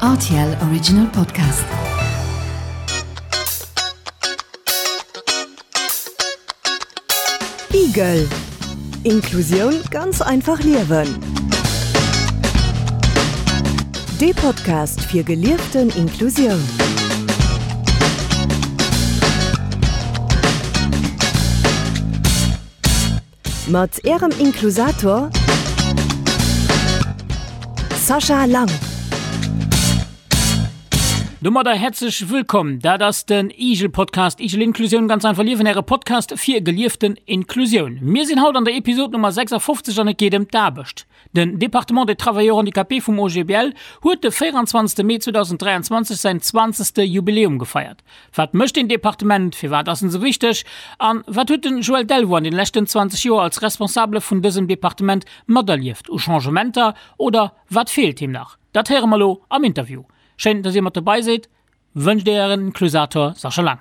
Rtl Original Podcast. Igel Inklusioun ganz einfach liewen. Dee Podcast fir gelieften Inklusioun. Mat Ärem Inklusator Sascha Lang. Domadder häerzlech wëllkomm. Dat ass den Igel Podcast, Igel Inklusioun ganz einfach liewen, Äre Podcast fir gelieften Inklusioun. Mir sinn haut an der Episod Nummer 56 an et geet ëm d'Aarbecht. Den Département des Travailleurs Handicapés vum OGBL huet de 24. Mee 2023 säin zwanzegste Jubiläum gefeiert. Wat mécht deen Departement, firwat ass en esou wichteg an wat huet den Joël Delvaux an den leschten 20 Joer als Responsabele vun dësem Departement materlieft u Changementer oder wat feelt him nach? Dat héiere mer elo am Interview. Schéin, dass dir mat dobei sidd. Wënscht Ären Inklusator Sascha Lang.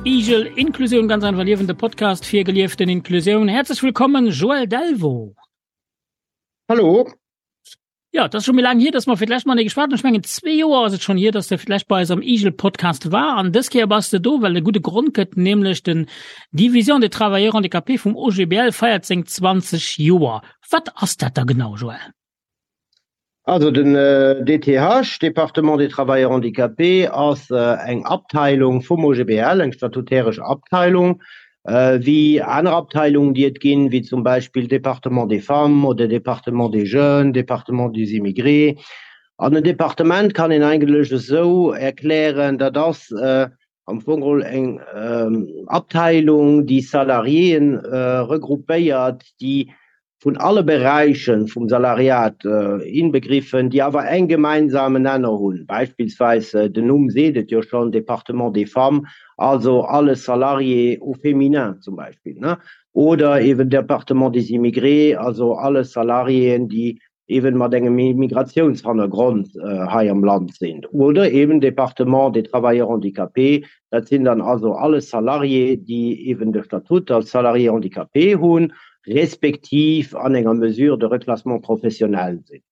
Igel Inklusion ganz einfach liewen, de Podcast fir gelieften Inklusioun. Herzlich willkommen Joël Delvaux. Hallo. Ja, dat ass scho méi laang hier, dass mer fir d'lescht Mal geschwat hunn. Ech mengen zwee Joer ass et schonn hier, dass de fir d'lescht bei eis am Igel Podcast war. An dës Kéier bass de do, well e gudde Grond gëtt, nämlech den Division des Travailleurs Handicapés vum OGBL feiert seng 20 Joer. Wat ass dat da genau, Joël? Also den DTH, Département des Travailleurs Handicapés, ass eng Abteilung vum OGBL, eng statutäresch Abteilung, Wéi aner Abteilungen, déi et ginn, wéi zum Beispill Département des femmes oder Département des jeunes, Département des immigrés. An en Departement kann een eigentlech esou erklären, dat ass am Fong geholl eng Abteilung, déi Salariéen regroupéiert, déi vun alle Beräichen vum Salariat inbegriffen, déi awer eng gemeinsamen Nenner hunn, beispillsweis, den Numm seet et jo schonn, Département des femmes, also alle Salariés au féminin zum Beispill, oder eben Département des immigrés, also alle Salariéen, déi eben mat engem Immigratiounshannergrond hei am Land sinn, oder eben Département des travailleurs handicapés, dat sinn dann also alle Salariés, déi eben de Statut als Salarié handicapé hunn, respektiv an enger Mesure de reclassement professionnel sinn.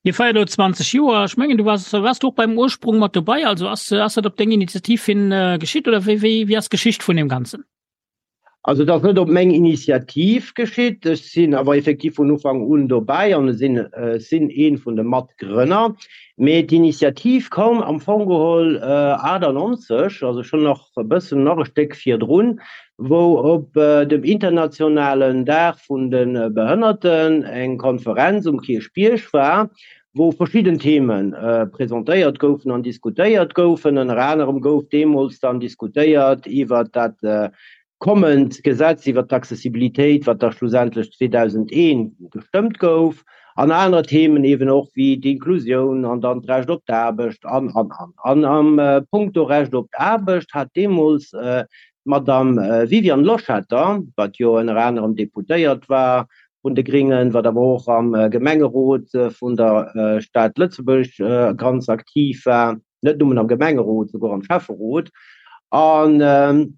Dir feiert elo 20 Joer. Ech mengen, du waars, waars du och beim Ursprung mat dobei? Also ass, ass dat op deng Initiativ hin geschitt oder wéi, wéi, wéi ass d'Geschicht vun deem Ganzen? Also et ass net op meng Initiativ geschitt, ech sinn awer effektiv vun Ufank un dobäi an ech sinn, ech sinn ee vun de Matgrënner. Mee d'Initiativ koum am Fong geholl 98, also schonn nach e bëssen, nach e Stéck virdrun, wou op dem internationalen Dag vun de Behënnerten eng Konferenz um Kierchbierg war, wou verschidden Theme presentéiert goufen an diskutéiert goufen. Ënner anerem gouf deemools dann diskutéiert iwwert dat kommend Gesetz iwwert d'Accessibilitéit, wat da schlussendlech 2001 gestëmmt gouf, an aner Themen eeben och wéi d'Inklusioun an dann d'Recht op d'Aarbecht an, an, an. An am Punkto Recht op d'Aarbecht hat deemools d'Madame Viviane Loschetter, wat jo ënner anerem Deputéiert war vun de Gringen, wat awer och am Gemengerot vun der Stad Lëtzebuerg ganz aktiv war, net nëmmen am Gemengerot, souguer am Schäfferot. An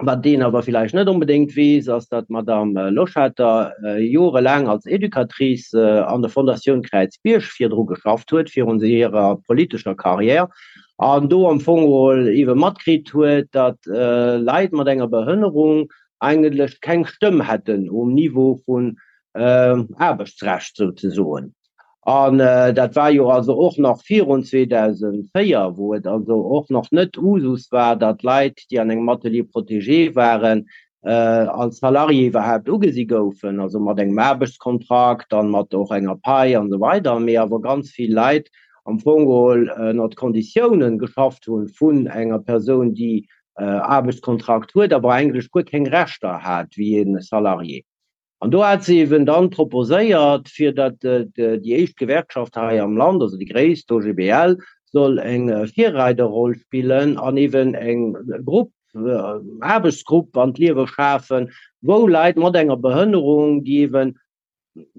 wat een awer villäicht net onbedéngt weess, ass, datt d'Madame Loschetter jorelaang als Educatrice an der Fondatioun Kräizbierg virdru geschafft huet, virun hirer politescher Carrière, an do am Fong geholl eebe matkritt huet, datt Leit mat enger Behënnerung eigentlech keng Stëmm hätten um Niveau vun Aarbechtsrecht souzesoen. An dat war jo also och nach virun 2004, wou et also och nach net Usus war, datt Leit, déi an engem Atelier protégé waren, als Salarié iwwerhaapt ugesi goufen, also mat engem Aarbechtskontrakt an mat och enger Pai an esou weider, mee awer ganz vill Leit am Fong geholl ënnert Konditiounen geschafft hunn vun enger Persoun, déi Aarbechtskontrakt huet, awer eigentlech guer keng Rechter hat wéi e Salarié. An do hat se eben dann proposéiert, fir datt déi éischt Gewerkschaft hei am Land, also déi gréisst, d'OGBL, soll eng Virreiderroll spillen an eben eng Grupp, Aarbechtsgrupp an d'Liewe schafen, wou Leit mat enger Behënnerung, déi eben,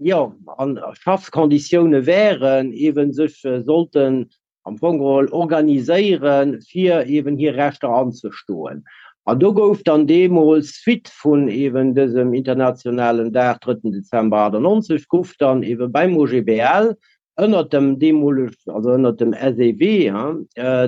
jo, an Schaffkonditioune wären, eben sech sollten am Fong geholl organiséieren, fir eben hir Rechter anzestoen. An do gouf dann deemools, suite vun eben dësem internationalen Dag, drëtten Dezember 98, gouf dann eben beim OGBL ënnert dem deemoleg, also ënnert dem SEW,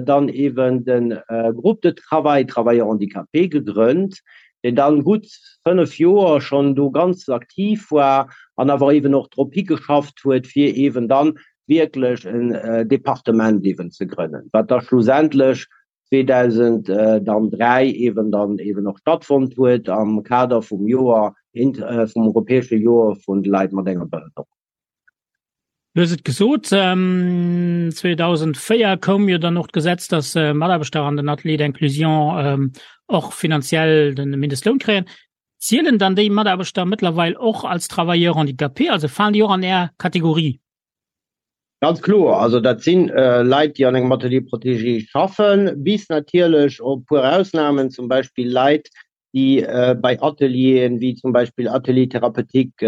dann eben de Groupe de travail Travailleurs handicapés gegrënnt, deen dann gutt 5 Joer schonn do ganz aktiv war an awer eben och drop higeschafft huet, fir eben dann wierklech en Departement eben ze grënnen, wat da schlussendlech 2003 eben dann eben och stattfonnt huet am Kader vum Joer, vum europäesche Joer vun de Leit mat enger Behënnerung. Du hues et gesot, 2004 koum jo dann och d'Gesetz, dass Mataarbechter an den Ateliers d'inclusion och finanziell de Mindestloun kréien. Zielen dann déi Mataarbechter mëttlerweil och als Travailleurs handicapés, also falen déi och an Är Kategorie? Ganz kloer, also dat si Leit, déi an engem Atelier protégé schaffen, bis natierlech op e puer Ausnamen, zum Beispill Leit, déi bei Atelieren, wéi zum Beispill Atelier thérapeutique,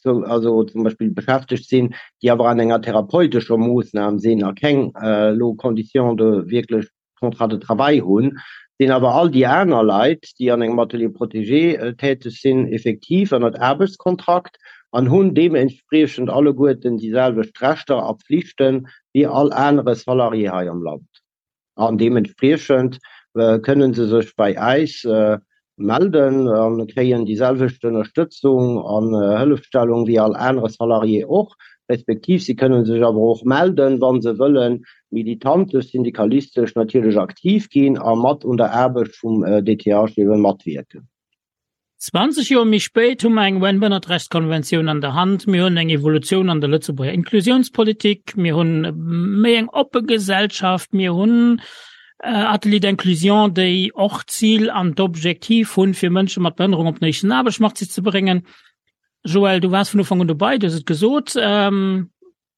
also zum Beispill beschäftegt sinn, déi awer an enger therapeutescher Moossnam sinn a keng elo Conditions de wierklech Contrat de travail hunn, sinn awer all déi aner Leit, déi an engem Atelier protégé täteg sinn, effektiv ënnert Aarbechtskontrakt an hunn deementspriechend alleguerten déi selwecht Rechter a Pflichte wéi all anere Salarié hei am Land. An deementspriechend kënne se sech bei äis melden a kréien déi selwecht Ënnerstëtzung an Hëllefstellung wéi all anere Salarié och, respektiv si kënne sech awer och melden, wa se wëllen militantesch, syndikalistesch natierlech aktiv ginn a mat un der Aarbecht vum DTH ebe matwierken. 20 Joer méi spéit hu mer eng UN-Bënnertrechtskonventioun an der Hand, mir hunn eng Evolutioun an der Lëtzebuerger Inklusiounspolitik, mir hunn méi eng oppe Gesellschaft, mir hunn Ateliers d'inclusion, déi och d'Zil an d'Objektiv hunn, fir Mënsche mat Behënnerung op den éischten Aarbechtsmarkt ze bréngen. Joël, du waars vun Ufank un dobei, du hues et gesot.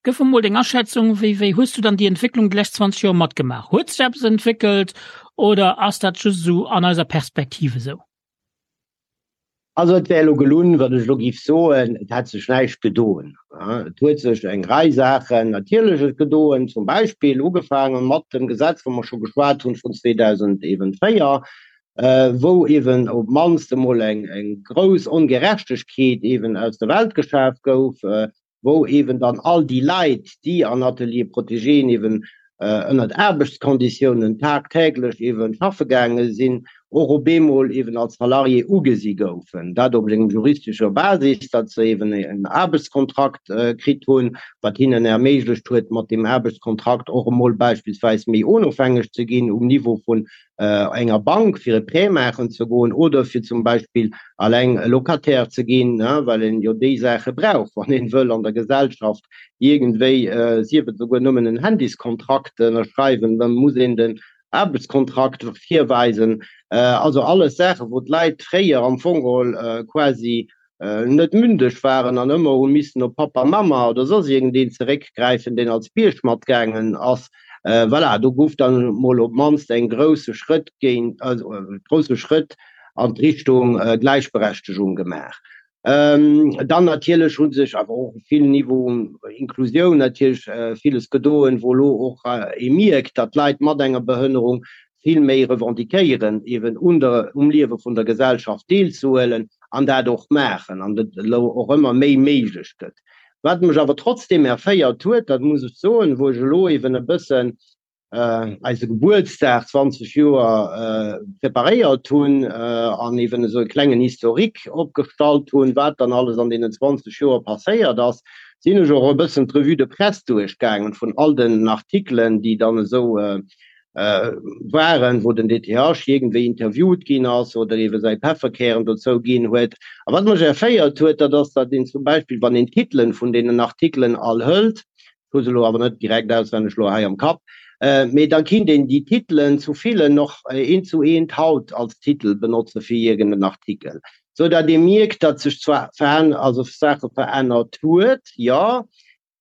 Gëff emol deng Aschätzung, wéi, wéi hues du dann déi Entwécklung déi lescht 20 Joer matgemaach? Huet sech eppes entwéckelt oder ass dat just esou an eiser Perspektiv esou? Also et wär elo gelunn, wann ech elo géif soen, et hätt sech näischt gedoen. Et huet sech eng Rei Saachen natierlech et gedoen, zum Beispill ugefaange mat dem Gesetz, wou mer scho geschwat hunn, vun 2004, wou eeben op d'mannst emol eng grouss Ongerechtegkeet eeben aus der Welt geschaf gouf, wou eeben dann all déi Leit, déi an Ateliers protégéen eeben ënnert Aarbechtskonditiounen tagtäglech eeben schaffe gaange sinn, och op eemol eeben als Salarié ugesi goufen. Dat op engem juristescher Basis, datt se eeben en Aarbechtskontrakt kritt hunn, wat hinnen erméiglecht huet, mat deem Aarbechtskontrakt och emol beispillsweis méi onofhängeg ze ginn um Niveau vun enger Bank fir e Prêt maachen ze goen oder fir zum Beispill alleng Locataire ze ginn, well een jo déi Saache brauch, wann een wëll an der Gesellschaft iergendwéi, sief et esouguer nëmmen en Handyskontrakt ënnerschreiwen, da muss een den Aarbechtskontrakt virweisen. Also alles Saachen, wou d'Leit fréier am Fong geholl quasi net mündeg waren an ëmmer hu missen op Pappa, Mamma oder soss iergendeen zeréckgräifen, deen als Bierg matgaangen ass. Voilà, do gouf dann mol op d'mannst eng grousse Schrëtt géint, also e grousse Schrëtt an d'Richtung Gläichberechtegung gemaach. Dann natierlech hu sech awer och op vill Niveauen, Inklusioun natierlech, villes gedoen, wou elo och ee mierkt, datt Leit mat enger Behënnerung vill méi revendiquéieren, eeben un der, um Liewe vun der Gesellschaft deelzehuelen an dat och maachen an et elo och ëmmer méi méiglech gëtt. Wat mech awer trotzdeem erféiert huet, dat muss ech soen, wou ech elo eeben e bëssen eise Gebuertsdag, 20 Joer, preparéiert hunn an eeben esou e klengen Historique opgestallt hunn, wat dann alles an deenen 20 Joer passéiert ass, sinn ech och e bëssen d'Revue de presse duerchgaangen vun all den Artikelen, déi dann esou waren, wou den DTH iergendwéi interviewt ginn ass oder eebe säi Pefferkären dozou ginn huet. A wat mech erféiert huet, dat ass, datt een zum Beispill, wann een d'Titelen vun deenen Artikelen all hëlt, ech hu se elo awer net direkt auswenneg elo hei am Kapp, mee da kinnt een déi Titelen zu villen och eent zu eent haut als Titel benotze fir iergend en Artikel. Sou datt ee mierkt, datt sech zwar also Saache verännert huet, jo,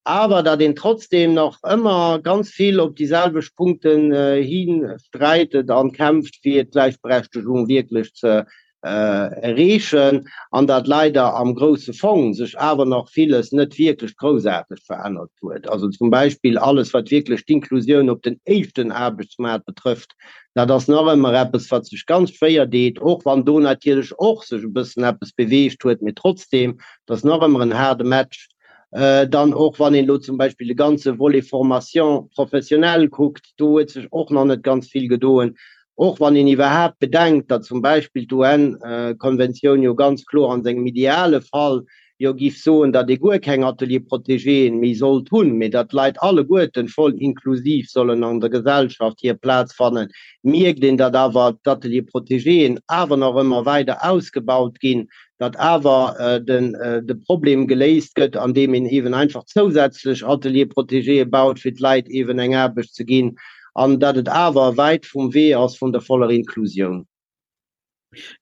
awer datt een trotzdem nach ëmmer ganz vill op déi selwecht Punkten hi sträitet an kämpft, fir d'Gläichberechtegung wierklech ze erreechen, an datt leider am grousse Fong sech awer nach villes net wierklech groussaarteg verännert huet. Also zum Beispill alles, wat wierklech d'Inklusioun op den éischten Aarbechtsmaart betrëfft, dat ass nach ëmmer eppes, wat sech ganz schwéier deet, och wann do natierlech och sech e bëssen eppes beweegt huet, mee trotzdem, dat ass nach ëmmer en haarde Match. Dann och wann een elo zum Beispill de ganze Volet Formation professionnelle kuckt, do huet sech och nach net ganz vill gedoen. Och wann een iwwerhaapt bedenkt, datt zum Beispill d'UN-Konventioun jo ganz kloer an sengem ideale Fall jo giff soen, datt ee guer keng Ateliers protégéen méi sollt hunn, mee datt d'Leit alleguerten voll inklusiv sollen an der Gesellschaft hir Plaz fannen, mierkt een, datt awer d'Ateliers protégéen awer nach ëmmer weider ausgebaut ginn, datt awer de Problem geléist gëtt, andeem een eeben einfach zousätzlech Ateliers protégéë baut, fir d'Leit eeben eng Aarbecht ze ginn, an datt et awer wäit vum Wee ass vun der voller Inklusioun.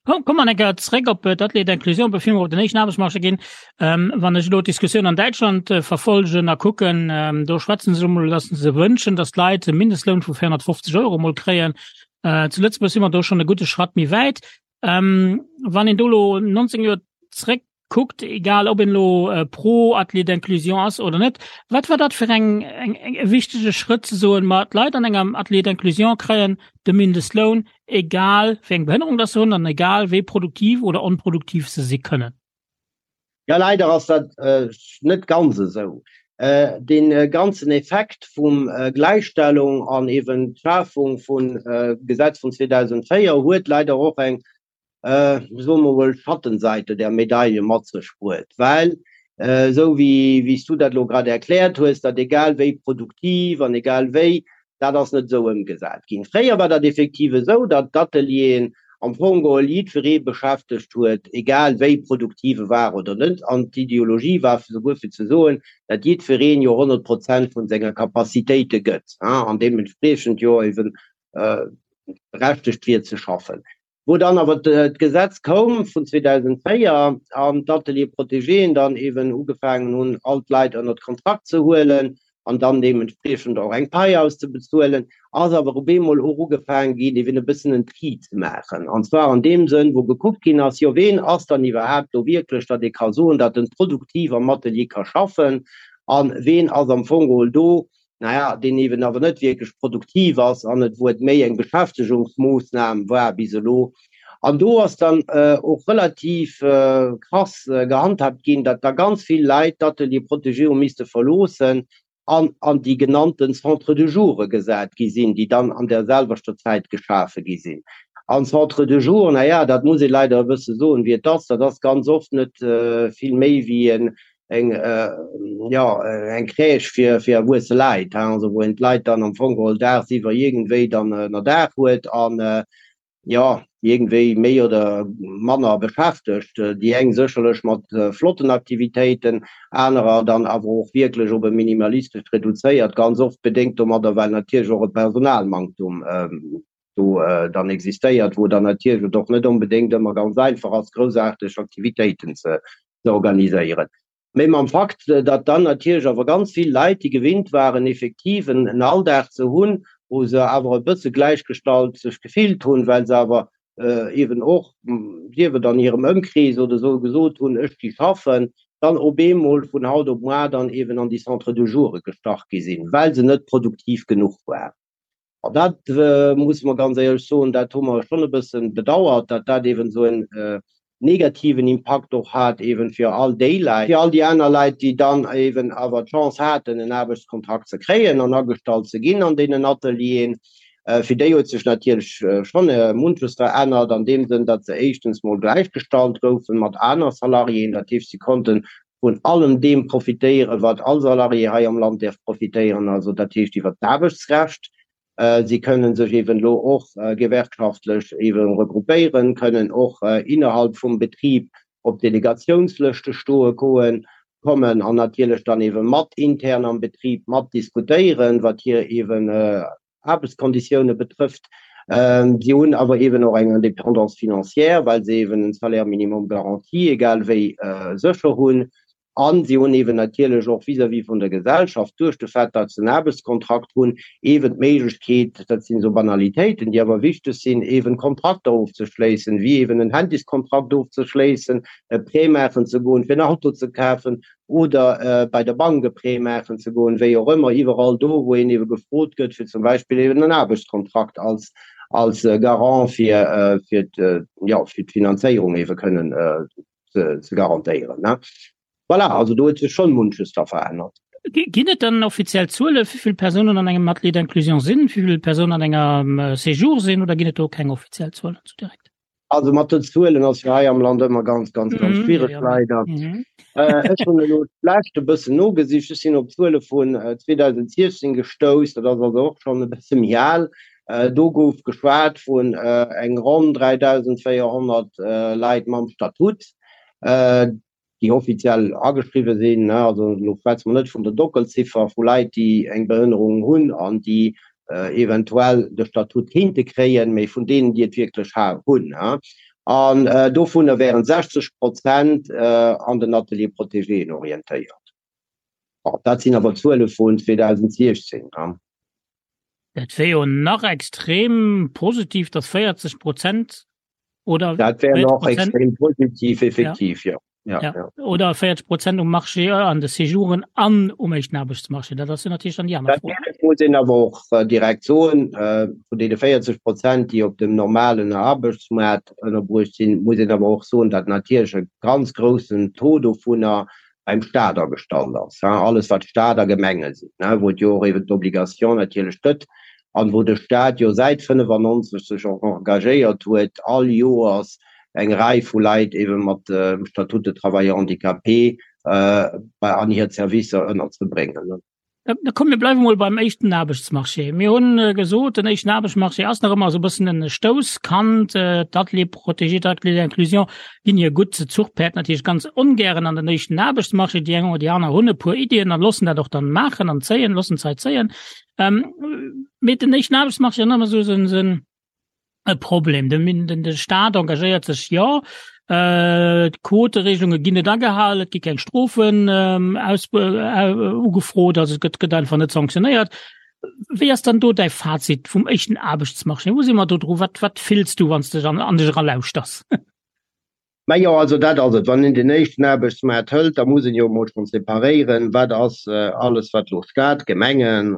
Komm mer eng Kéier zréck op d'Ateliers d'inclusion, bevir mer op den éischten Aarbechtsmarché ginn. Wann ech elo d'Diskussioun an Däitschland verfolgen a kucken, do schwätzen se emol, datt se sech wënschen, datt d'Leit e Mindestloun vu 450 Euro emol kréien. Zu Lëtzebuerg si mer do schonn e gudde Schratt méi wäit. Ähm, wann een do lo 19 Joer zréck kuckt, egal ob een lo äh, pro Atelier d'inclusion ass oder net, wat war dat fir eng, eng, eng e wichtege Schrëtt ze soen, ma d'Leit an engem Atelier d'inclusion kréien de Mindestloun, egal wéi eng Behënnerung dass se hunn an egal wéi produktiv oder onproduktiv se si kënnen? Ja, leider ass dat äh, net ganz esou. Äh, den äh, ganzen Effekt vum äh, Gläichstellung an eben d'Schafung vun äh, Gesetz vun 2004 huet leider och eng, äh, soe mer mol, Schattenseite der Medaille mat sech bruet, well äh, esou wéi wéi s du dat elo grad erkläert hues, datt egal wéi produktiv an egal wéi, Dat ass net esou ëmgesat ginn. Fréier war dat effektiv esou, datt d'Atelieren am Fong geholl jiddweree beschäftegt huet, egal wéi produktiv e war oder net. An d'Ideologie war souguer fir ze soen, datt jiddwereen jo 100 Prozent vun senger Capacitéite gëtt an deementspriechend jo eeben berechtegt wier ze schaffen. Wou dann awer d'Gesetz koum vun 2004 an d'Ateliers protégéen dann eeben ugefaangen hunn, all d'Leit ënnert Kontrakt ze huelen an dann deementspriechend och eng Pai auszebezuelen, ass awer op eemol och ugefaangen ginn, eeben e bëssen en Tri ze maachen. An zwar an deem Sënn, wou gekuckt ginn ass, jo ween ass dann iwwerhaapt do wierklech, datt ee ka soen, datt en produktiv am Atelier ka schaffen a ween ass am Fong geholl do, naja, deen eeben awer net wierklech produktiv ass an et, wou et méi eng Beschäftegungsmoossnam war bis elo. An do ass dann och relativ krass gehandhabt ginn, datt da ganz vill Leit d'Ateliers protégés hu misste verloossen an an déi genannten Centres de jour gesat gi sinn, déi dann an där selwechter Zäit geschafe gi sinn. An Centres de jour, naja, dat muss ee leider e bësse soen, wéi et ass, dat ass ganz oft net vill méi wéi en eng jo eng Crèche fir fir erwuesse Leit, hein, also wou een d'Leit dann am Fong geholl daagsiwwer iergendwéi dann ënnerdaach huet an jo iergendwéi méi oder manner beschäftegt. Déi eng sécherlech mat flotten Aktivitéiten, anerer dann awer och wierklech op e minimalistescht reduzéiert, ganz oft bedéngt domadder, well natierlech och e Personalmanktum do dann existéiert, wou dann natierlech et och net onbedéngt ëmmer ganz einfach ass, groussaarteg Aktivitéiten ze organiséieren. Mee mam Fakt, datt dann natierlech awer ganz vill Leit, déi gewinnt waren, effektiv en Alldag ze hunn, wou se awer e bësse gläichgestallt sech gefillt hunn, well se awer eeben och, sief et an hirem Ëmkrees oder esou, gesot hunn, ech gi schaffen, dann op eemol vun haut op muar dann eeben an déi Centres de jour gestach gi sinn, well se net produktiv genuch waren. An dat musse mer ganz éierlech soen, dat hu mer schonn e bësse bedauert, datt dat eeben esou en negativen Impakt och hat eeben fir all déi Leit, fir all déi aner Leit, déi dann eeben awer d'Chance haten, en Aarbechtskontrakt ze kréien an agestallt ze ginn an deenen Atelieren. Fir déi huet sech natierlech schonn munches verännert an deem Sënn, datt se éischtens mol gläichgestallt goufe mat aner Salariéen, dat heescht, si konnten vun allem deem profitéieren, wat all Salarié hei am Land däerf profitéieren, also dat heescht iwwert d'Aarbechtsrecht. Si kënnen sech eeben elo och gewerkschaftlech eeben regroupéieren, kënnen och innerhalb vum Betrib op Delegatiounslëschte stoe goen, kommen an natierlech dann eebe mat intern am Betrib mat diskutéieren, wat hir eeben Aarbechtskonditioune betrëfft. Si hunn awer eeben och eng Indépendance financière, well se eeben en Salaire minimum garanti egal wéi sécher hunn. A si hunn eeben natierlech och vis-à-vis vun der Gesellschaft, duerch de Fait, datt se en Aarbechtskontrakt hunn, eeben d'Méiglechkeet, dat sinn esou Banalitéiten, déi awer wichteg sinn, eeben Kontrakter ofzeschléissen, wéi eeben en Handyskontrakt ofzeschléissen, e Prêt maachen ze goen, fir en Auto ze kafen oder bei der Bank e Prêt maachen ze goen, wéi och ëmmer, iwwerall do, wou een eebe gefrot gëtt, fir zum Beispill eeben en Aarbechtskontrakt als, als Garant fir, fir jo, fir d'Finanzéierung eebe kënnen ze garantéieren. Voilà, also do huet sech schonn munches da verännert. Ginn et dann offiziell Zuele wéi vill Persounen an engem Atelier d'inclusion sinn, wéi vill Persounen an engem Séjour sinn oder ginn et do keng offiziell Zuelen sou direkt? Also mat den Zuelen ass jo hei am Land ëmmer ganz, ganz, ganz schwiereg, leider. Ech hunn elo d'lescht e bëssen nogesicht. Ech sinn op Zuele vun 2016 gestouss, dat ass also och schonn e bësse méi al. Do gouf geschwat vun eng ronn 3.400 Leit mam Statut, déi offiziell ageschriwwe sinn. Also elo schwätze mer net vun der Dockelziffer vu Leit, déi eng Behënnerung hunn an déi eventuell de Statut kéinte kréien, mee vun deenen, déi et wierklech hunn. An dovunner wären 60 Prozent an den Ateliers protégéen orientéiert. Bon, dat sinn awer Zuele vun 2016. Dat wär jo nach extrem positiv, datt 40 Prozent oder Dat wär nach extrem positiv, effektiv, ja. Ja, ja. ja. Oder 40 Prozent um Marché äh, an de Séjouren an um éischten Aarbechtsmarché. Dat ass jo natierlech dann déi aner Fro. Dat muss een awer och äh, direkt soen, äh, vun deene 40 Prozent, déi op dem normalen Aarbechtsmaart ënnerbruecht sinn, muss een awer och soen, datt natierlech e ganz groussen Taux dovunner beim Staat agestallt ass, alles wat Staat a Gemenge sinn, wou et jo och eben d'Obligation natierlech gëtt an wou de Staat jo säit 95 sech och engagéiert huet, all Joers eng Rei vu Leit eben mat dem Statut de travailleur handicapé an hir Servicer ënnerzebréngen. Da komm, mir bleiwe mol beim éischten Aarbechtsmarché. Mir hunn gesot, den éischten Aarbechtsmarché ass nach ëmmer esou e bëssen en Stousskand. D'Ateliers protégés, d'Ateliers d'inclusion ginn hir gutt Zuchpäerd natierlech ganz ongären an den éischten Aarbechtsmarché. Déi eng oder déi aner hunn e puer Iddien a loossen dat och dann maachen an zéien, loossen d'Zait zéien. Mee den éischten Aarbechtsmarché ass nach ëmmer esou en e Problem. Den, den, de Staat engagéiert sech jo, äh, d'Quoteregelunge ginn net agehalen, et gi keng Strofen ähm, aus, äh, ugefrot, also et gëtt, gëtt einfach net sanktionéiert. Wéi ass dann do däi Fazit vum éischten Aarbechtsmarché? Wou si mer do dru? Wat, wat fills du, wann s de an, an dech eralauschters? Majo, also dat ass et. Wann een den éischten Aarbechtsmaart hëlt, da muss een jo emol schonn separéieren, wat ass alles, wat elo Staat, Gemengen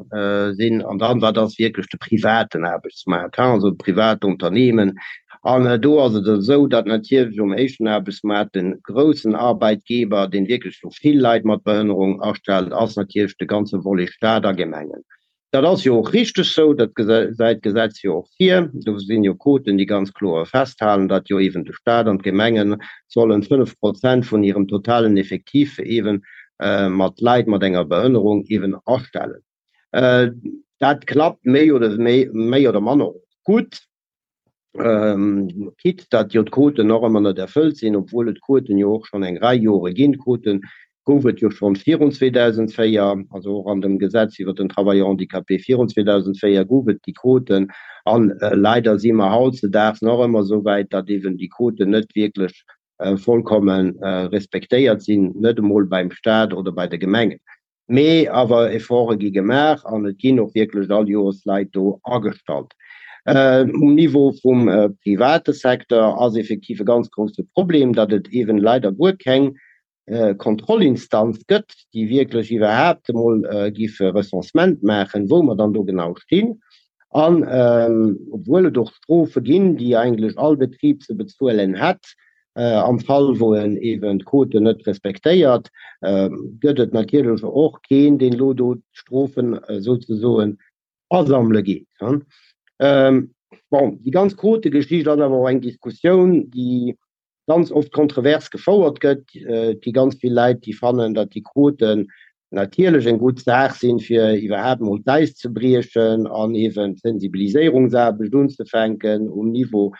sinn, an dann, wat ass wierklech de privaten Aarbechtsmaart, also privat Unternehmen. An do ass et esou, datt natierlech um éischten Aarbechtsmaart de groussen Arbeitgeber, deen wierklech elo vill Leit mat Behënnerung astellt, ass natierlech de ganze Volet Staat a Gemengen. Dat ass jo och richteg sou, dat gesäit d'Gesetz jo och vir. Do sinn jo Quoten, déi ganz kloer festhalen, datt jo eeben de Stat an d'Gemenge sollen 5 Prozent vun hirem totalen Effektif eeben mat Leit mat enger Behënnerung eeben astellen. Dat klappt méi oder méi oder manner och gutt. Quitte datt jo d'Quoten och ëmmer net erfëllt sinn, obwuel et Quoten jo och schonn eng Rei Jore ginn. Quote gouf et jo schonn virun 2004, also och an dem Gesetz iwwert den Travailleur handicapé virun 2004 gouf et déi Quoten. A leider si mer hautzedaags nach ëmmer esou wäit, datt eeben déi Quoten net wierklech vollkomme respektéiert sinn, net emol beim Stat oder bei de Gemengen. Mee awer Efforte gi gemaach an et ginn och wierklech all Joers Leit do agestallt. Um Niveau vum private Secteur ass effektiv e ganz grousse Problem, datt et eeben leider guer keng Kontrollinstanz gëtt, déi wierklech iwwerhaapt emol giff e Recensement maachen, wou mer dann do genau stinn. An obwuel et och Strofe ginn, déi eigentlech all Betrib ze bezuelen hätt, Am Fall wou en eben d'Quoten net respektéiert, gëtt et natierlech och keen, deen elo do d'Strofen souzesoen asammele geet. Bon, déi ganz Quotegeschicht ass awer och eng Diskussioun, déi ganz oft kontrovers gefouert gëtt. Et gi ganz vill Leit, déi fannen, datt déi Quoten natierlech eng gutt Saach sinn, fir iwwerhaapt emol d'Äis ze briechen an eeben d'Sensibiliséierungsaarbecht unzefänken um Niveau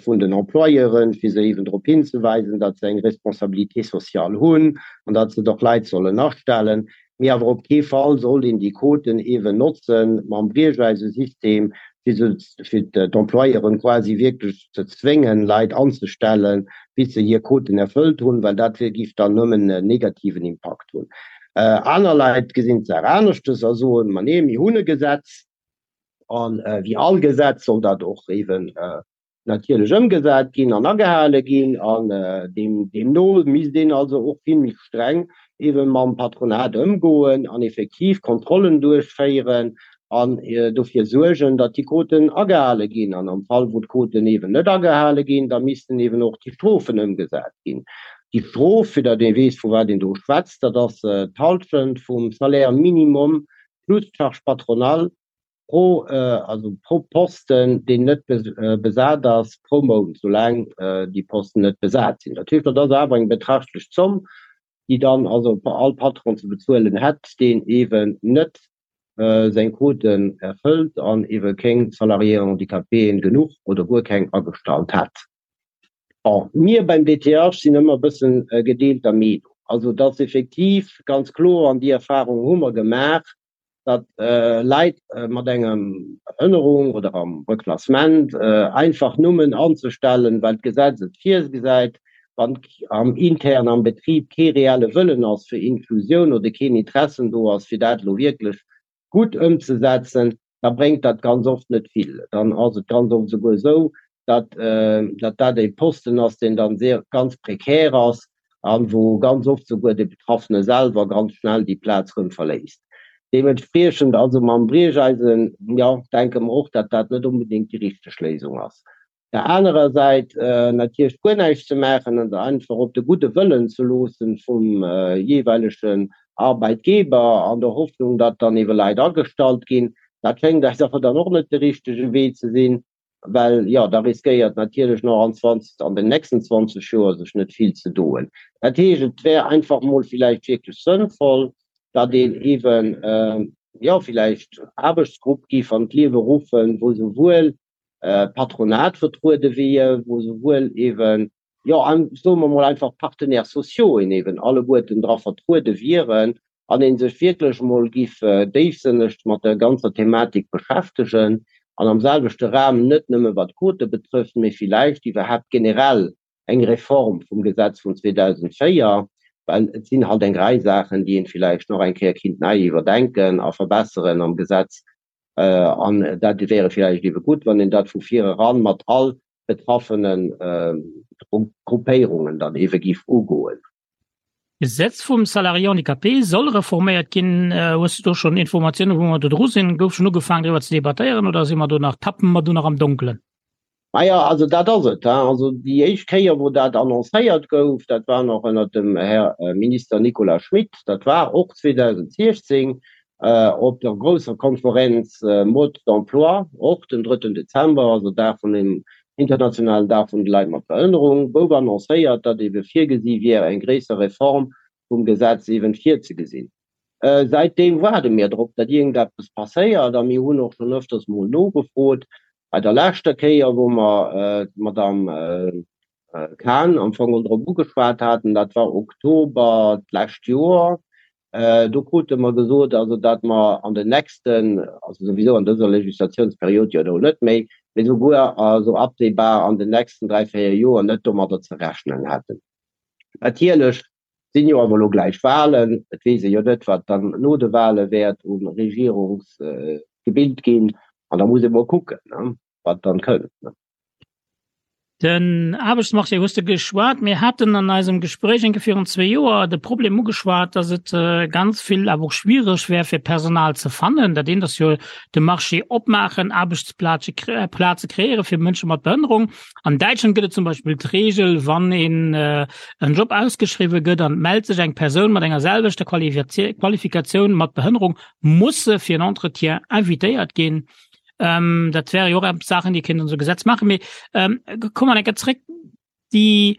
vun den Employeuren, fir se eeben drop hinzeweisen, datt se eng Responsabilité sociale hunn an datt se och Leit sollen astellen. Mee awer op kee Fall sollt een déi Quoten eeben notzen mam Briecheisesystem. Fir se, fir d'Employeuren quasi wierklech ze zwéngen, Leit anzestellen, bis se hir Quoten erfëllt hunn, well dat wier, géif dann nëmmen en negativen Impakt hunn. Aner Leit gesinn d'Saach aneschtes a soen, Ma nee, mir hunn e Gesetz, a wéi all Gesetz soll dat och eeben natierlech ëmgesat ginn an agehale ginn an deemno misst een also och vill méi streng eebe mam Patronat ëmgoen an effektiv Kontrollen duerchféieren an dofir suergen, datt déi Quoten agehale ginn. An am Fall wou d'Quoten eeben net agehale ginn, da missten eeben och déi Strofen ëmgesat ginn. Déi Strof, fir datt ee weess vu wat een do schwätzt, dat ass d'Halschent vum Salaire minimum plus d'Charge patronale pro, also pro Posten, deen net besat ass, pro Mount, soulaang déi Posten net besat sinn. Dat heescht, dat ass awer eng betrachtlech Zomm, déi dann also all Patron ze bezuelen hätt, deen eeben net seng Quoten erfëllt an eebe keng Salariéen handicapéen genuch oder guer keng agestallt hätt. Bon, mir beim DTH sinn ëmmer e bëssen gedeelter Meenung. Also, et ass effektiv ganz kloer, an déi Erfahrung hu mer gemaach, datt Leit mat enger Behënnerung oder am Reklassement einfach nëmmen anzestellen, well d'Gesetz et virgesäit, wann am intern am Betrib kee reelle Wëllen ass fir Inklusioun oder keen Interessen do ass, fir dat elo wierklech gutt ëmzesetzen, da bréngt dat ganz oft net vill. Dann ass et ganz oft esouguer esou, datt datt dat e Posten ass, deen dann sehr ganz prekär ass an wou ganz oft souguer de Betraffene selwer ganz schnell déi Plaz rëm verléisst. Deementspriechend also mam Briecheisen, jo, denke mer och, datt dat net onbedéngt déi richteg Léisung ass. Der anerer Säit natierlech guer näischt ze maachen an einfach op de gudde Wëllen ze loossen vum jeeweilegen Arbeitgeber an der Hoffnung, datt dann ebe Leit agestallt ginn, dat schéngt eis awer dann och net de richtege Wee ze sinn. Well jo, da riskéiert natierlech nach an 20, an den nächsten 20 Joer sech net vill ze doen. Dat heescht, et wär einfach mol villäicht wierklech sënnvoll, datt een eeben, jo, villäicht Aarbechtsgrupp géif an d'Liewe ruffen, wou souwuel d'Patronat vertruede wier, wou souwuel eeben, jo, soe mer mol einfach d'Partenaires sociaux eeben alleguerten dra vertruede wieren an ee sech wierklech emol giff déifsënneg mat der ganzer Thematik beschäftegen an am selwechte Raum net nëmme wat d'Quote betrëfft, mee villäicht iwwerhaapt generell eng Reform vum Gesetz vun 2004, well et sinn halt eng Rei Saachen, déi een villäicht nach eng Kéier kinnt nei iwwerdenken a verbesseren am Gesetz. An dat wäre villäicht ebe gutt, wann een dat vu vir eran mat all betraffene Gruppéierungen dann ebe giff ugoen. D'Gesetz vum Salarié handicapé soll reforméiert ginn. Hues du do schonn Informatiounen, wou mer do dru sinn? Gouf schonn ugefaangen, driwwer ze debattéieren oder si mer do nach, tappe mer do nach am Donkelen? Maja, also dat ass et. Also déi éischt Kéier, wou dat annoncéiert gouf, dat war nach ënnert dem Här Minister Nicolas Schmit, dat war och 2016 op der grousser Konferenz Mode d'emploi, och den drëtten Dezember, also Dag vun dem internationalen Dag vun de Leit mat Behënnerung, gouf annoncéiert, datt ebe virgesi wier, eng gréisser Reform vum Gesetz eeben virzegesinn. Säitdeem waarde mir drop, datt iergendeppes passéiert a mir hunn och schonn öfters mol nogefrot. Bei der leschter Kéier, wou mer d'Madame Cahen am Fong drop ugeschwat haten, dat war Oktober d'lescht Joer, Do krute mer gesot, also datt mer an den nächsten, also souwisou an dëser Legislatiouns-period jo elo net méi, mee souguer also absehbar an den nächsten dräi, véier Joer net domadder ze rechnen hätten. Natierlech sinn jo awer elo gläich Wahlen, et weess ee jo net, wat dann no de Wahle wäert u Regierungsgebild ginn, an da muss ee mol kucken, wat dann kënnt. Den Aarbechtsmarché hues de geschwat. Mir haten an eisem Gespréich eng Kéier virun zwee Joer de Problem ugeschwat, datt et ganz vill awer och schwiereg wär fir Personal ze fannen. Dat eent ass jo de Marché opmaachen, Aarbechtsplaze Plaze kreéiere fir Mënsche mat Behënnerung. An Däitschland gëtt et zum Beispill d'Reegel, wann een en Job ausgeschriwwe gëtt an et mellt sech eng Persoun mat enger selwechter Qualifikatioun mat Behënnerung, muss se fir en Entretien invitéiert ginn. Ähm, dat wäre jo och Saachen, déi kéint so Gesetz machen. Mee ähm, komm mal enke zréck die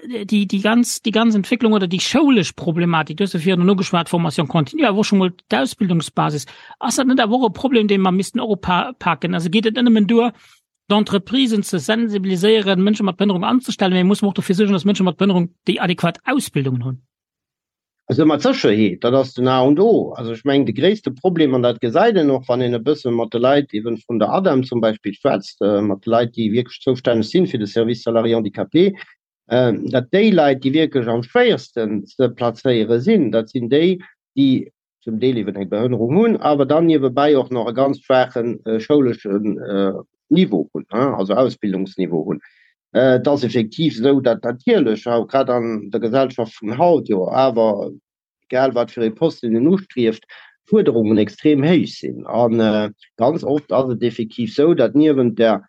äh, die die ganz die ganz Entwicklung oder die schoulesch Problematik du hast virun ugeschwat Formation continue awer schon mol d'Ausbildungsbasis ass dat net awer och e Problem dee mer missten och upaken also geet et net nëmmen duer d'Entreprisen ze sensibiliséieren Mënsche mat Behënnerung anzestellen mee muss mer och dofir suergen dass Mënsche mat Behënnerung déi adequat Ausbildungen hunn. Also mat Sécherheet, dat ass den A und O. Also ech mengen, de gréisste Problem, an dat gesäit een och, wann een e bësse mat de Leit eeben vun der ADEM zum Beispill schwätzt, mat de Leit, déi wierklech zoustänneg sinn fir de Service salariés handicapés, datt déi Leit, déi wierklech am schwéiersten ze plazéiere sinn, dat sinn déi, déi zum Deel eeben eng Behënnerung hunn, awer dann niewebäi och nach e ganz schwaache schouleschen Niveau hunn, also Ausbildungsniveau hunn. Et ass effektiv esou, datt natierlech, grad an der Gesellschaft vun haut jo awer, egal wat fir ee Posten een ustrieft, d'Fuerderungen extrem héich sinn. A ganz oft ass et effektiv esou, datt niewent der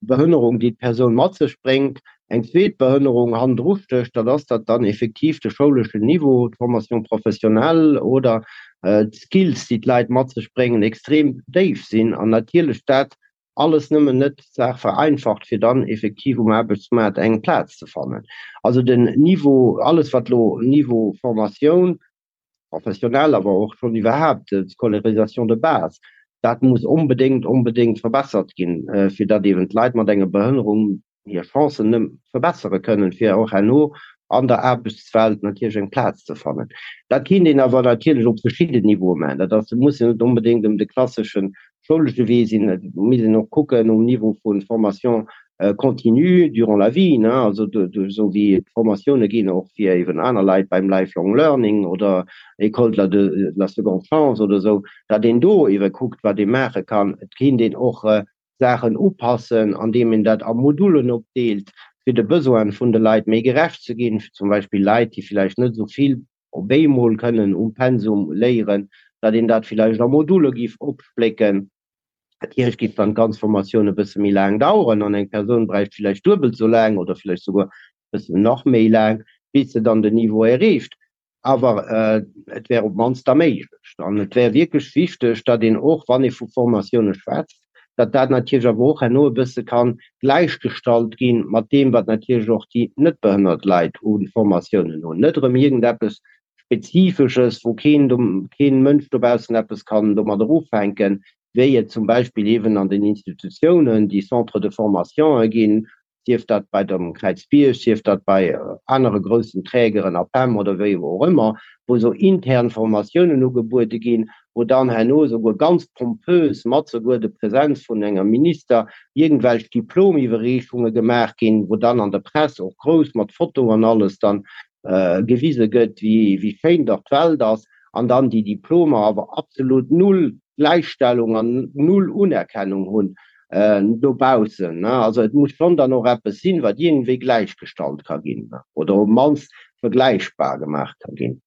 Behënnerung, déi d'Persoun mat sech bréngt, eng zweet Behënnerung hannendru stécht, dat ass, datt dann effektiv de schouleschen Niveau, d'Formation professionnelle oder d'Skills, déi d'Leit mat sech bréngen, extrem déif sinn an natierlech dat alles nëmmen net d'Saach vereinfacht, fir dann effektiv um Aarbechtsmaart eng Plaz ze fannen. Also den Niveau, alles wat elo Niveau Formatioun professionnelle, awer och schonn iwwerhaapt d'Scolarisation de base, dat muss onbedéngt, onbedéngt verbessert ginn, fir datt eeben d'Leit mat enger Behënnerung hir Chancen nëmme verbessere kënnen, fir och herno an der Aarbechtswelt natierlech eng Plaz ze fannen. Dat kéint een awer natierlech op verschidden Niveaue maachen. Dat ass, et muss jo net onbedéngt ëm de klassesche schoulesche Wee sinn. Et misst een och kucken um Niveau vu Formation continue durant la vie, ne, also esou wéi d'Formatioune ginn och fir eeben aner Leit beim Lifelong Learning oder École de la de la seconde chance oder esou, datt een do eebe kuckt, wat ee maache kann. Et kéint een och Saachen upassen, andeem een dat a Modulen opdeelt, fir de Besoine vun de Leit méi gerecht ze ginn, fir zum Beispill Leit, déi villäicht net esou vill op eemol kënnen um Pensum léieren, datt een dat villäicht a Module giff opsplécken. Natierlech giff dann d'ganz Formatioun e bësse méi laang daueren an eng Persoun bräicht villäicht duebelt esou laang oder villäicht souguer e bëssen nach méi laang, bis se dann den Niveau erreecht. Awer et wär op d'mannst da méiglech. An et wär wierklech wichteg, datt een och, wann ee vu Formatioune schwätzt, datt dat natierlech awer och herno e bësse ka gläichgestallt gi mat deem, wat natierlech och déi net behënnert Leit u Formatiounen hunn. Net erëm iergendeppes Spezifesches, wou keen, keen Mënsch dobaussen eppes kann domadder ufänken, wéi et zum Beispill eeben an den Institutiounen déi Centres de formationë ginn, sief dat bei dem Kräizbierg, sief dat bei anere groussen Trägeren, APEM oder wéi och ëmmer, wou esou intern Formatiounen ugebuede ginn, wou dann herno esouguer ganz pompös mat souguer de Präsenz vun enger Minister iergendwelch Diplomiwwerreechunge gemaach ginn, wou dann an der Press och grouss mat Foto an alles dann gewise gëtt, wéi schéin dach d'Welt ass, an dann déi Diplomer awer absolut null Gläichstellung an null Unerkennung hunn dobaussen. Also et muss schonn dann och eppes sinn, wat iergendwéi gläichgestallt ka ginn oder op d'mannst vergläichbar gemaach ka ginn.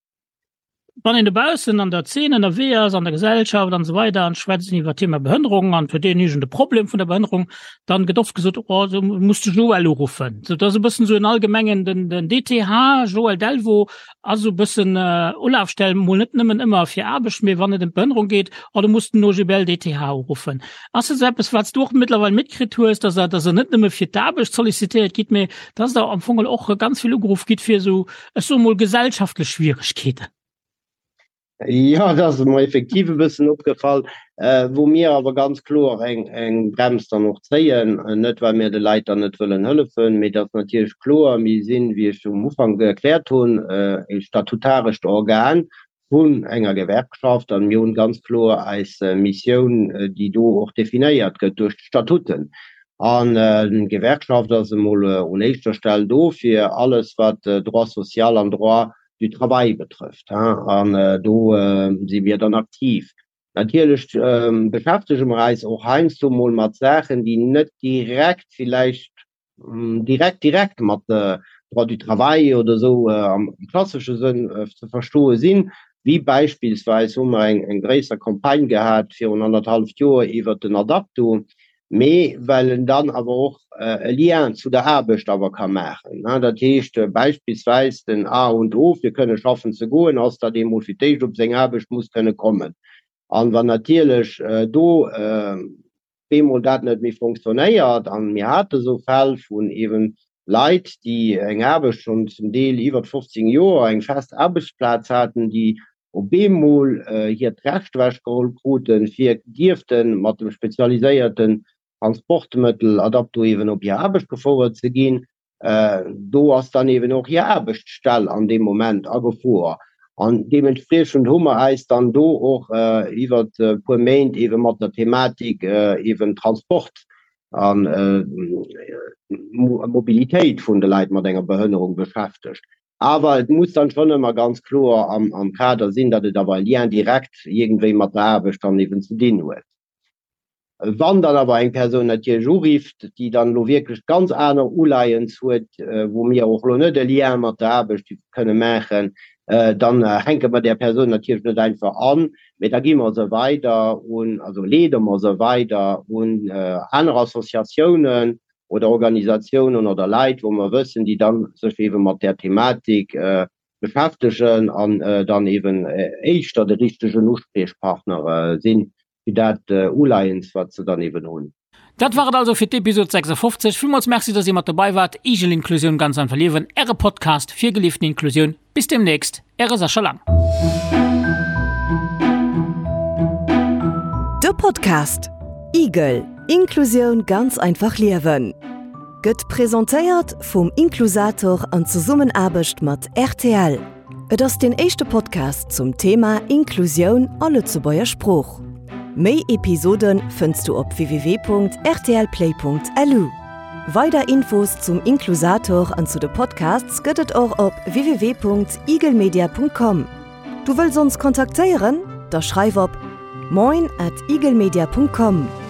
Wann een dobaussen an der Zeen ënnerwee ass, an der Gesellschaft an esou weider an schwätzt iwwer d'Thema Behënnerung an huet een iergend e Problem vun der Behënnerung, dann gëtt oft gesot, oh du muss de Joël uruffen. Sou dat ass e bëssen esou en allgemengen, den den DTH Joël Delvaux ass esou e bëssen Ulafstell, mol net nëmmen ëmmer fir Aarbecht, mee wann et ëm d'Behënnerung geet, oh du muss den OGBL DTH uruffen. Ass dat esou eppes, wat s du och mëttlerweil mitkritt hues, dass der, dass der net nëmme fir d'Aarbecht sollicitéiert gitt, mee dass der am Fong och ganz vill ugeruff gitt fir esou, ech soe mol, gesellschaftlech Schwieregkeeten? Jo, dat ass mer effektiv e bëssen opgefall, wou mir awer ganz kloer eng, eng Brems dann och zéien, net well mir de Leit dann net wëllen hëllefen, mee et ass natierlech kloer, mir sinn, wéi ech um Ufank erkläert hunn, e statutarescht Organ vun enger Gewerkschaft an mir hunn ganz kloer eis Missioun, déi do och definéiert gëtt duerch d'Statuten. An d'Gewerkschaft ass emol un éischter Stell do fir alles wat Droit social an Droit du travail betrëfft. An do si mir dann aktiv. Natierlech beschäftege mer eis och heiansdo mol mat Saachen, déi net direkt villäicht direkt direkt mat Droit du travail oder esou am klassesche Sënn ze verstoe sinn, wéi beispillsweis hu mer eng eng gréisser Campagne gehat virun annerthalleft Joer iwwert den Adapto, mee well en dann awer och e Lien zu der Aarbecht awer ka maachen. Dat heescht beispillsweis den A und O fir kënne schaffen ze goen ass, datt ee mol fir d'éischt op seng Aarbecht muss kënne kommen. An wann natierlech do bemol dat net méi fonctionnéiert, an mir hate sou Fäll vun eeben Leit, déi eng Aarbecht schonn zum Deel iwwert 15 Joer, eng fest Aarbechtsplaz haten, déi op eemol hiert Recht ewechgeholl kruten, fir dierfte mat dem spezialiséierten Transportmëttel Adapto eeben op hir Aarbecht gefouert ze ginn, Do ass dann eben och hir Aarbechtsstell an deem Moment a Gefor. An deementspriechend hu mer eis dann do och iwwert e puer Méint eebe mat der Thematik eeben Transport a Mobilitéit vun de Leit mat enger Behënnerung beschäftegt. Awer et muss dann schonn ëmmer ganz kloer am Kader sinn, datt et awer e Lien direct iergendwéi mat der Aarbecht dann eeben ze dinn huet. Wann dann awer eng Persoun natierlech urifft, déi dann elo wierklech ganz aner Uleiens huet, wou mir och elo net e Lien mat der Aarbecht kënne maachen, dann hänke mer där Persoun natierlech net einfach an, mee da gi mer se weider un, also leede mer se weider un aner Associatiounen oder Organisatiounen oder Leit, wou mer wëssen, déi dann sech eebe mat där Thematik beschäftegen an dann eeben éischter de richtegen Uspriechpartner sinn fir dat Uleiens, wat se dann eben hunn. Dat war et also fir d'Episod 56. Villmools Merci, dass Dir mat dobei waart. Igel Inklusioun ganz einfach liewen, Äre Podcast fir gelieften Inklusioun. Bis demnächst, Äre Sascha Lang. De Podcast Igel, Inklusioun ganz einfach liewen gëtt presentéiert vum Inklusator an Zesummenaarbecht mat rtl. Et ass deen éischte Podcast zum Thema Inklusioun a Lëtzebuerger Sprooch. Méi Episode fënns du op www.rtlplay.lu. Weider Infos zum Inklusator an zu de Podcasts gëtt et och op www.eaglemedia.com. Du wëlls ons kontaktéieren? Da schreif op moin at eaglemedia.com.